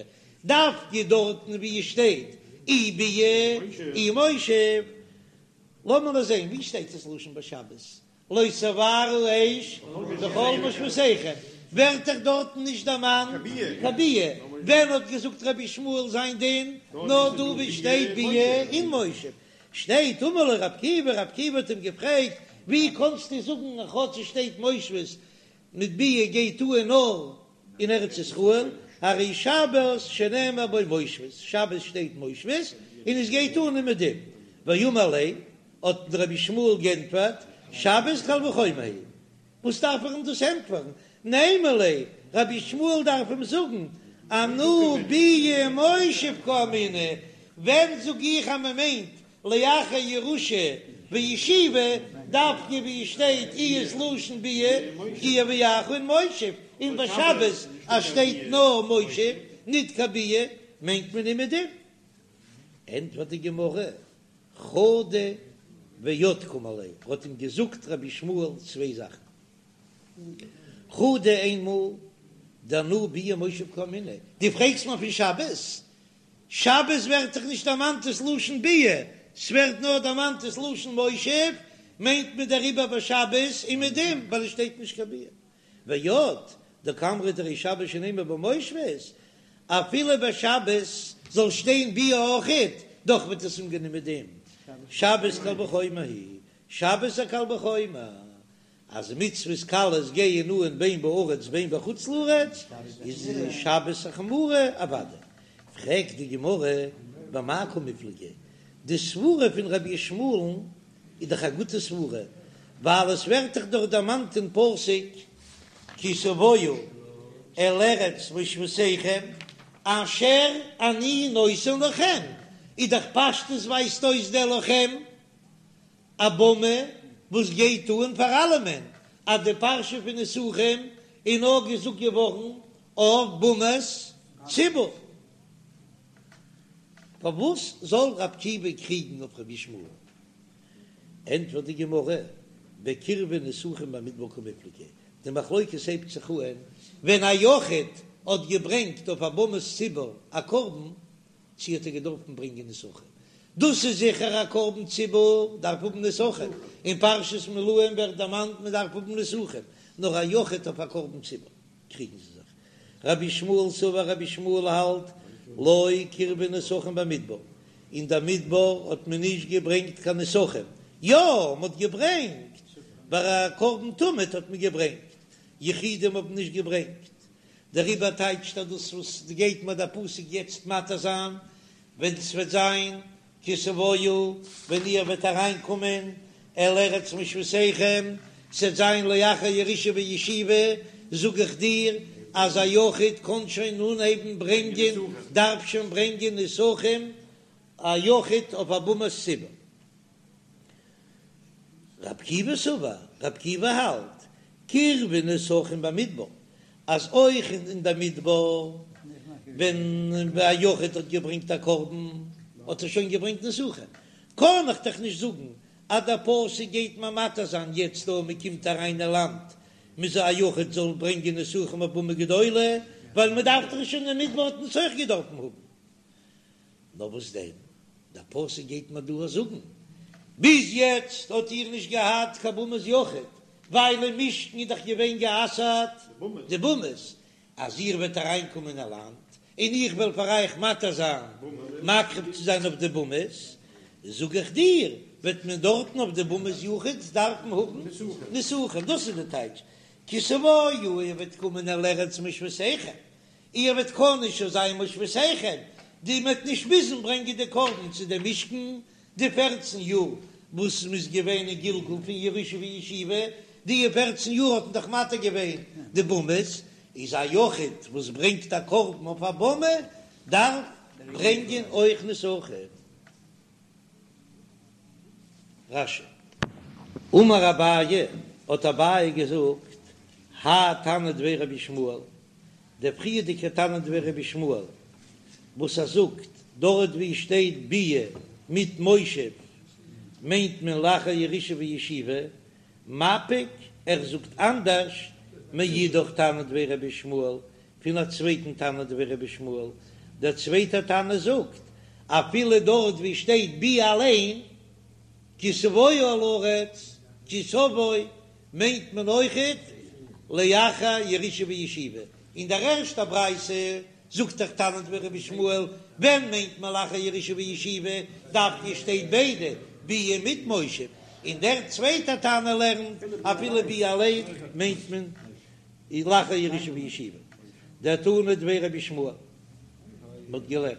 דווקא דארטן ווי עס שטייט אי ביאה אי מושב, לאמיר נאר זען ווי שטייט עס לשון ביי שבת לא תבערו אש בכל מושבותיכם, ווערט דאך דארטן נישט דערמאנט קיין ביאה, ווען האט געזאגט רבי ישמעאל זיין דין? נאר דא ווי שטייט ביאה און מושב, שטייט אמר לו רבי עקיבא, רבי עקיבא האט אים געפרעגט, ווי קאנסטו זאגן אז כאטש עס שטייט מושבות מיט ביאה גייט אן נאר אין ארץ ישראל, הרי שבת שנאמר בו מושבות, שבת שטייט מושבות און עס גייט אן אומעדום, ואמר ליה, האט רבי ישמעאל גענטפערט, שבת קל וחומר היא, וואס דארף איך אים דאס ענטפערן, נימא ליה, רבי ישמעאל דארף אים זאגן, אנא ביאה ומושב קאמינא, ווען זאג איך אז מען מיינט לאחר ירושה וישיבה, דווקא ווי עס שטייט אי ס'לשון ביאה כי יביאך און מושב, און ביי שבת אז שטייט נאר מושב ניט קיין ביאה מיינט מען אומעדום. ענטפערט די גמרא, חדא ועוד קאמר ליה, האט אים געזאגט רבי ישמעאל צוויי זאכן, חדא איינמאל דאנא ביאה ומושב קאמינא, דו פרעגסט מיר פון שבת? שבת ווערט דאך נישט דערמאנט דאס לשון ביאה, ס'ווערט נאר דערמאנט דאס לשון מושב, מיינט מען דעריבער ביי שבת אומעדום ווייל עס שטייט נישט קיין ביאה. ועוד, דקאמרת הרי שבת שנאמר בו מושבות, אפילו ביי שבת זאל שטיין ביאה אויכעט, דאך וועט עס אנגיין אומעדום. שבת קל וחומר היא, שבת איז א קל וחומר, אז מצוות קלות גייען אן בין בארץ בין בחוץ לארץ, איז שבת א חמורה אוודאי. פרעגט די גמרא במאי קמיפלגי, די סברה פון רבי ישמעאל'ן איז דאך א גוטע סברה, ווייל עס ווערט דאך דארט דערמאנט אין פסוק כי תבואו אל ארץ מושבותיכם אשר אני נותן לכם, איז דאך פשטות ווייזט אויס דער לכם א במה וואס גייט אן פאר אלעמען, אז די פרשה פון נסכים איז נאר געזאגט געווארן אויף במת ציבור. פארוואס זאל רב עקיבא קריגן אויף רבי ישמעאל? ענטפערט די גמרא, בקירבו נסכים במדבר קמיפלגי, די מחלוקת הייבט זיך אהן ווען א יחיד האט געברענגט אויף א במת ציבור א קרבן, צי האט ער געדארפן ברענגען נסכים? דאס איז זיכער א קרבן ציבור דארף האבן נסכים, אין פרשת מילואים ווערט דערמאנט מען דארף האבן נסכים, נאר א יחיד אויף א קרבן ציבור קריגן זיי זיך. רבי ישמעאל סבר רבי ישמעאל האלט לא קירבו נסכים במדבר, אין דער מדבר האט מען נישט געברענגט קיין נסכים, יא מען האט געברענגט ביי א קרבן תמיד האט מען געברענגט, יחידים האבן נישט געברענגט, דעריבער טייטשט ער דאס וואס גייט מיר דער פסוק יעצט מתיר זיין, ווען ס'וועט זיין כי תבואו, ווען איר וועט אריינקומען אל ארץ מושבותיכם, ס'וועט זיין לאחר ירושה וישיבה, זאג איך דיר אז א יחיד קען שוין אנהייבן ברענגען, דארף שוין ברענגען נסכים, א יחיד אויף א במת ציבור. רב עקיבא סבר, רב עקיבא האלט, קירבו נסכים במדבר, אז אויך אין די מדבר ווען א יחיד האט געברענגט א קרבן האט ער שוין געברענגט נסכים, קען איך דאך נישט זאגן אז דער פסוק גייט מיר מתיר זיין יעצט דא מען קומט אריין אין לאנד מ'זאל א יחיד זאל ברענגען נסכים אויף במה גדולה, ווייל מען דארף דאך שוין אין מדבר האט מען עס אויך געדארפן האבן. נאר וואס דען, דער פסוק גייט מיר דא זאגן, ביז יעצט האט איר נישט געהאט קיין במת יחיד, ווייל אין משכן איז דאך געווען גע'אסר'ט די במות, אז איר וועט אריינקומען אין לאנד, און איך וועל פאר אייך מתיר זיין מקריב צו זיין אויף די במות, זאג איך דיר, וועט מען דארטן אויף די במת יחיד דארפן האבן נסכים, דאס איז די טייטש, כי תבואו, איר וועט קומען אל ארץ מושבותיכם, איר וועט קענען שוין זיין מושבותיכם, די מ'וועט נישט מוזן ברענגען די קרבן צו דעם משכן, די פערצן יאר וואס מ'איז געווען אין גלגול פון ירושה וישיבה, די פערצן יאר האט מען דאך מתיר געווען די במות, איז א יחיד וואס ברענגט א קרבן אויף א במה דארף ברענגען אויך נסכים. רש"י. אמר אביי, האט אביי געזאגט, האי תנא דבי רבי ישמעאל, דער פריערדיגער תנא דבי רבי ישמעאל וואס ער זאגט דארט ווי שטייט ביאה מיט מושב מיינט מען לאחר ירושה וישיבה, מפיק, ער זאגט אנדערש מאידך תנא דבי רבי ישמעאל פון א צווייטן תנא דבי רבי ישמעאל, דער צווייטער תנא זאגט אפילו דארט ווי שטייט ביאה אליין כי תבוא אל הארץ כי תבוא מיינט מען אויכעט לאחר ירושה וישיבה, אין דער ערשטער ברייתא זאגט דאך תנא דבי רבי ישמעאל, ווען מיינט מען לאחר ירושה וישיבה, דווקא שטייט ביידע ביאה מיט מושב, און דער צווייטער תנא לערנט אפילו ביאה אליין מיינט מען לאחר ירושה וישיבה, דתנא דבי רבי ישמעאל, מען האט געלערנט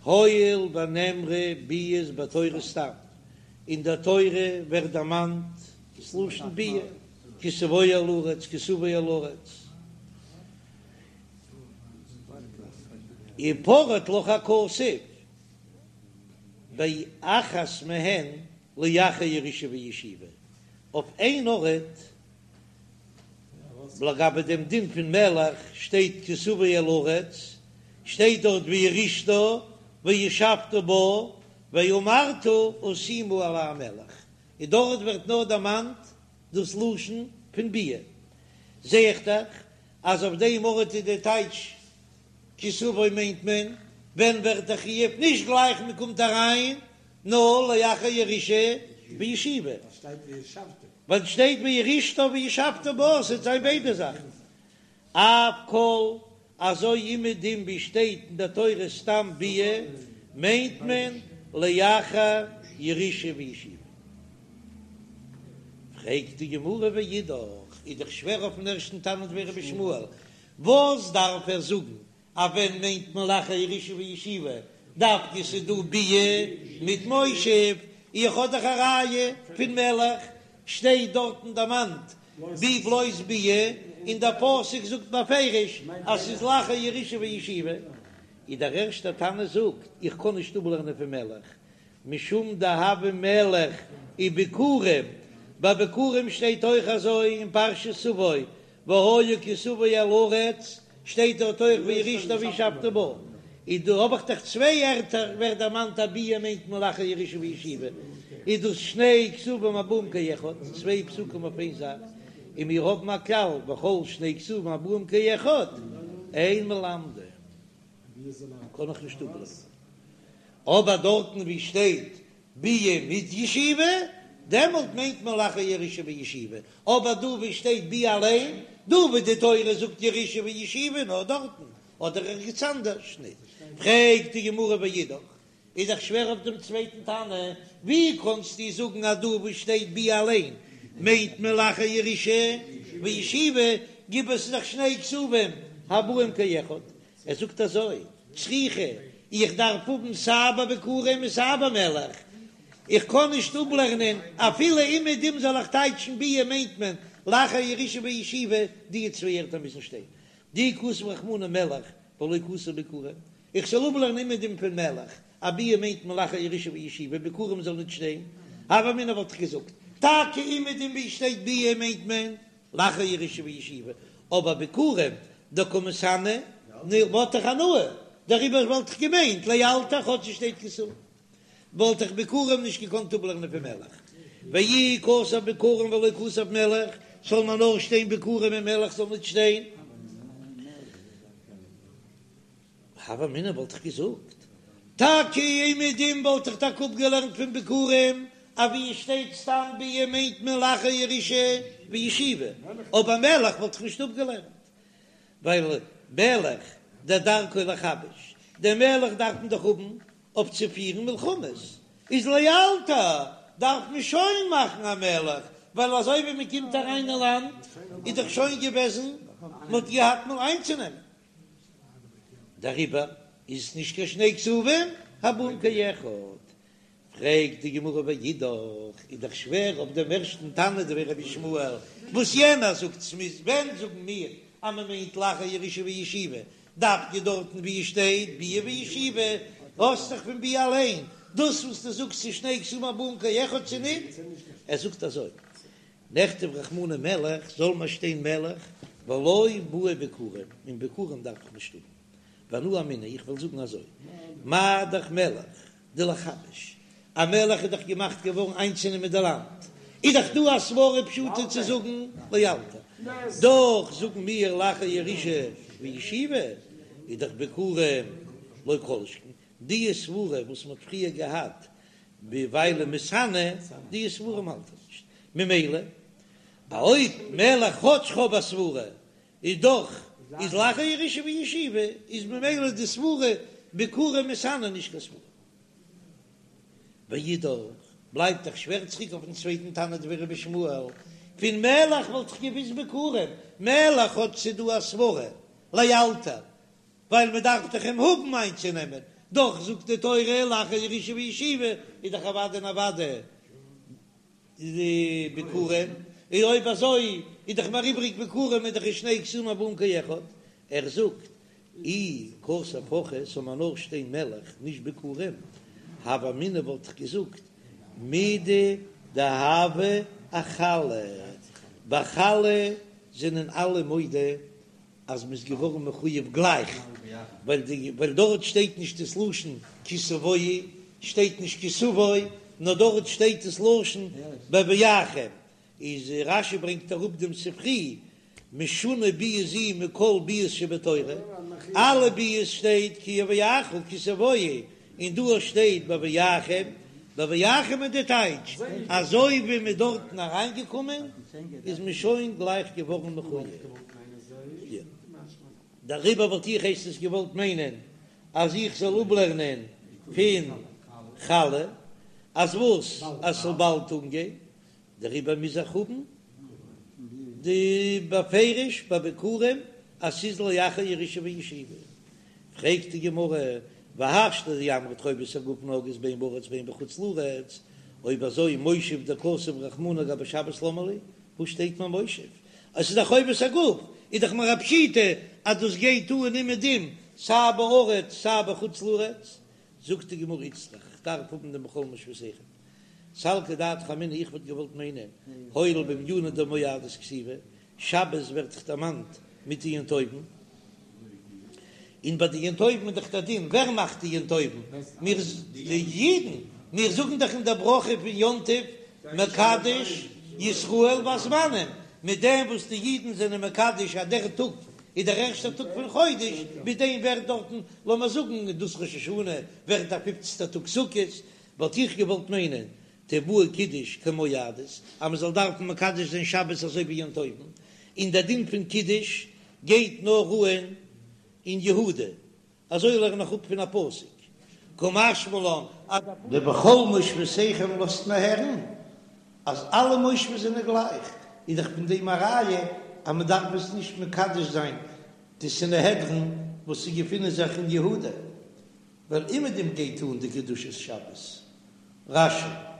הואיל ונאמרה ביאות בתורה סתם, אין דער תורה ווערט דערמאנט דאס לשון ביאה, כי תבוא אל הארץ, כי תבוא אל הארץ. ופרט לך הכתוב באחת מהן לאחר ירושה וישיבה, אויף איין ארט לגבי דעם דין פון מלך שטייט כי תבוא אל הארץ, שטייט דארט וירשתה וישבת בה ואמרת אשימה עלי מלך, און דארט ווערט נאר דערמאנט דאס לשון פון ביאה, זע איך דאך אז אויף דעם ארט איז די טייטש כי תבוא מיינט מען ווען ווערט דער חיוב נישט גלייך מען קומט אריין נאר לאחר ירושה וישיבה, ווייל שטייט וירשתה וישבת בה ס'וועט זיין ביידע זאכן. אף כל, אזוי אומעדום ווי שטייט אין דער תורה סתם ביאה, מיינט מען לאחר ירושה וישיבה. פרעגט די גמרא ואידך, איז דאך שווער אויפן ערשטן תנא דבי רבי ישמעאל, וואס דארף ער זאגן אז ווען מיינט מען לאחר ירושה וישיבה, דווקא ס'איז דא ביאה מיט מושב, איך האב דאך א ראיה פון מלך, שטייט דארטן דערמאנט בי בלויז ביאה, און דער פסוק זאגט בפירוש אז ס'איז לאחר ירושה וישיבה, איז דער ערשטער תנא זאגט איך קען נישט אפלערנען פון מלך, משום דהוה מלך וביכורים, ביי ביכורים שטייט אויך אזוי אין פרשת תבוא, והיה כי תבוא אל הארץ, שטייט דארט אויך וירשתה וישבת בה, איז דא האב איך דאך צוויי ערטער ווערט דערמאנט אז ביאה מיינט מען לאחר ירושה וישיבה, איז דאס שני כתובים הבאים כאחד, צוויי פסוקים אויף איין זאך, און מיר האבן א כלל וכל שני כתובים הבאים כאחד אין מלמדין, קען איך נישט אפלערנען, אבער דארטן ווי שטייט ביאה מיט ישיבה, דעמאלט מיינט מען לאחר ירושה וישיבה, אבער דא ווי שטייט ביאה אליין, דא ווי די תורה זאגט ירושה וישיבה נאר דארטן, אדער ערגעץ אנדערש ניט. פרעגט די גמרא ואידך, איז דאך שווער אויף דעם צווייטן תנא, ווי קאנסטו זאגן אז דא וואו שטייט ביאה אליין מיינט מען לאחר ירושה וישיבה, גיב עס איז דאך שני כתובים הבאים כאחד, ער זאגט אזוי, צריכא, איך דארף האבן סיי ביי ביכורים און סיי ביי מלך, איך קען נישט אפלערנען אפילו אומעדום זאל איך טייטשן ביאה מיינט מען לאחר ירושה וישיבה, די צוויי ערטער מוזן שטיין, דאי כתב רחמנא מלך ולא כתב ביכורים, איך זאל אפלערנען אומעדום פון מלך אז ביאה מיינט מען לאחר ירושה וישיבה, ביכורים זאל ניט שטיין, הוה אמינא וואלט איך געזאגט, טאקע אומעדום ווי שטייט ביאה מיינט מען לאחר ירושה וישיבה, אבער ביכורים דקא מתענא וואלט איך הנאה, דעריבער וואלט איך געמיינט לאלתר כאטש עס שטייט כי תבוא, וואלט איך ביכורים נישט געקאנט אפלערנען פון מלך, ואי כתב ביכורים ולא כתב מלך, זאל מען נאר שטיין ביכורים און מלך זאל ניט שטיין. הוה אמינא וואלט איך געזאגט, טאקע אומעדום וואלט איך טאקע אפגעלערנט פון ביכורים אז ווי עס שטייט סתם ביאה מיינט מען לאחר ירושה וישיבה, אבער מלך וואלט איך נישט אפגעלערנט, ווייל מלך דדרכו לכבש, דער מלך דארף מען דאך האבן אויף צו פירן מלחמות, איז לאלתר דארף מען שוין מאכן א מלך, ווייל אזוי ווי מען קומט אריין אין לאנד איז דאך שוין געוועזן מען האט געהאט מאל איינצונעמען. דעריבער איז עס נישט קיין שני כתובים הבאים כאחד. פרעגט די גמרא ואידך, איז דאך שווער אויף דעם ערשטן תנא דבי רבי ישמעאל, וואס יענער זאגט ס'מוז, ווען זאגן מיר אז מען מיינט לאחר ירושה וישיבה, דווקא דארטן ווי עס שטייט ביאה וישיבה, האסט דאך פון ביאה אליין, דאס וואס דו זאגסט ס'איז שני כתובים הבאים כאחד צו ניט? ער זאגט אזוי. נכתוב רחמנא מלך, זאל מיר שטיין מלך, ולא בעי ביכורים, און ביכורים דארף איך נישט האבן. ואנא אמינא, איך וועל זאגן אזוי, מה דאך מלך דלכבש, א מלך איז דאך געמאכט געווארן איינצונעמען די לאנד, איז דאך דא א סברא פשוטה צו זאגן לאלתר, דאך זאגן מיר לאחר ירושה וישיבה, איז דאך ביכורים לא כל שכן, די סברה וואס מען האט פריער געהאט ווייל מתענה, די סברה האלט איך נישט, ממילא אויב מלך כאטש כ'האב א סברה איז דאך איז לאחר ירושה וישיבה איז ממילא די סברה ביכורים מתענה נישט קיין סברה. ואידך בלייבט דאך שווער צוריק אויפן צווייטן תנא דבי רבי ישמעאל, פון מלך וואלט איך געוויסט ביכורים, מלך כאטש ס'איז דא א סברה לאלתר ווייל מען דארף דאך אים האבן איינצונעמען, דאך זאגט די תורה לאחר ירושה וישיבה איז דאך אוודאי און אוודאי די ביכורים, און אויב אזוי איז דאך מיר איבריג ביכורים איז דאך שני כתובים הבאים כאחד, ער זאגט אי כתב הכי זאל מיר נאר שטיין מלך נישט ביכורים, הוה אמינא וואלט איך געזאגט מידי דהוה אחלה, ביי חלה זענען אלע מודה אז מ'איז געווארן מחויב גלייך, ווייל די ווייל דארט שטייט נישט דאס לשון כי תבואו, שטייט נישט כי תבוא, נאר דארט שטייט דאס לשון בבואכם, איז רש"י ברענגט אראפ דעם ספרי, משונה ביאה זו מכל ביאות שבתורה, אלע ביאות שטייט כי יביאך כי תבואו, און דא שטייט בבואכם, בבואכם איז די טייטש, אזוי ווי מ'איז דארטן אריינגעקומען איז מען שוין גלייך געווארן מחויב. דעריבער וואלט איך הייסט עס געוואלט מיינען אז איך זאל אפלערנען פון חלה אז וואס? אז ס'זאל באלד אנגיין, דעריבער מוז איך האבן די בפירוש ביי ביכורים אז ס'איז לאחר ירושה וישיבה. פרעגט די גמרא, והשתא דאמרת חובת הגוף נוהגת בין בארץ בין בחוץ לארץ, אויב אזוי מושב דכתב רחמנא גבי שבת למה לי, וואס שטייט מיר מושב? אז ס'איז דאך חובת הגוף, איז דאך מיר א פשיטא אז דאס גייט אן אומעדום סיי בארץ סיי בחוץ לארץ. זאגט די גמרא איצטריך, כ'דארף האבן דעם בכל מושבותיכם. סלקא דעתך אמינא איך וואלט געוואלט מיינען הואיל ובענינא דמועדות כתיבי, שבת ווערט דאך דערמאנט מיט די יום טובים, און ביי די יום טובים איז דאך דער דין, ווער מאכט די יום טובים? מיר די אידן, מיר זאגן דאך אין דער ברכה פון יום טוב מקדש ישראל והזמנים, מיט דעם וואס די אידן זענען מקדש אז דער טאג איז דער ערשטער טאג פון חודש, מיט דעם ווערט דארטן, לאמיר זאגן, דאס ראש השנה ווערט דער פופצנטער טאג סוכות, וואלט איך געוואלט מיינען תיבעי קידוש כמועדות, אז מען זאל דארפן מקדש זיין שבת אזוי ווי יום טובים, און דער דין פון קידוש גייט נאר אן אין יהודה, אזוי לערן איך אפ פון א פסוק, קא משמע לן אז. די בכל מושבותיכם לאזט מען הערן אז אלע מושבות זענען גלייך, איז דאך פון דעם א ראיה אז מען דארף עס נישט מקדש זיין די סנהדרין וואס ס'געפינען זיך אין יהודה. ווייל אומעדום גייט אן די קדושת שבת. רש"י.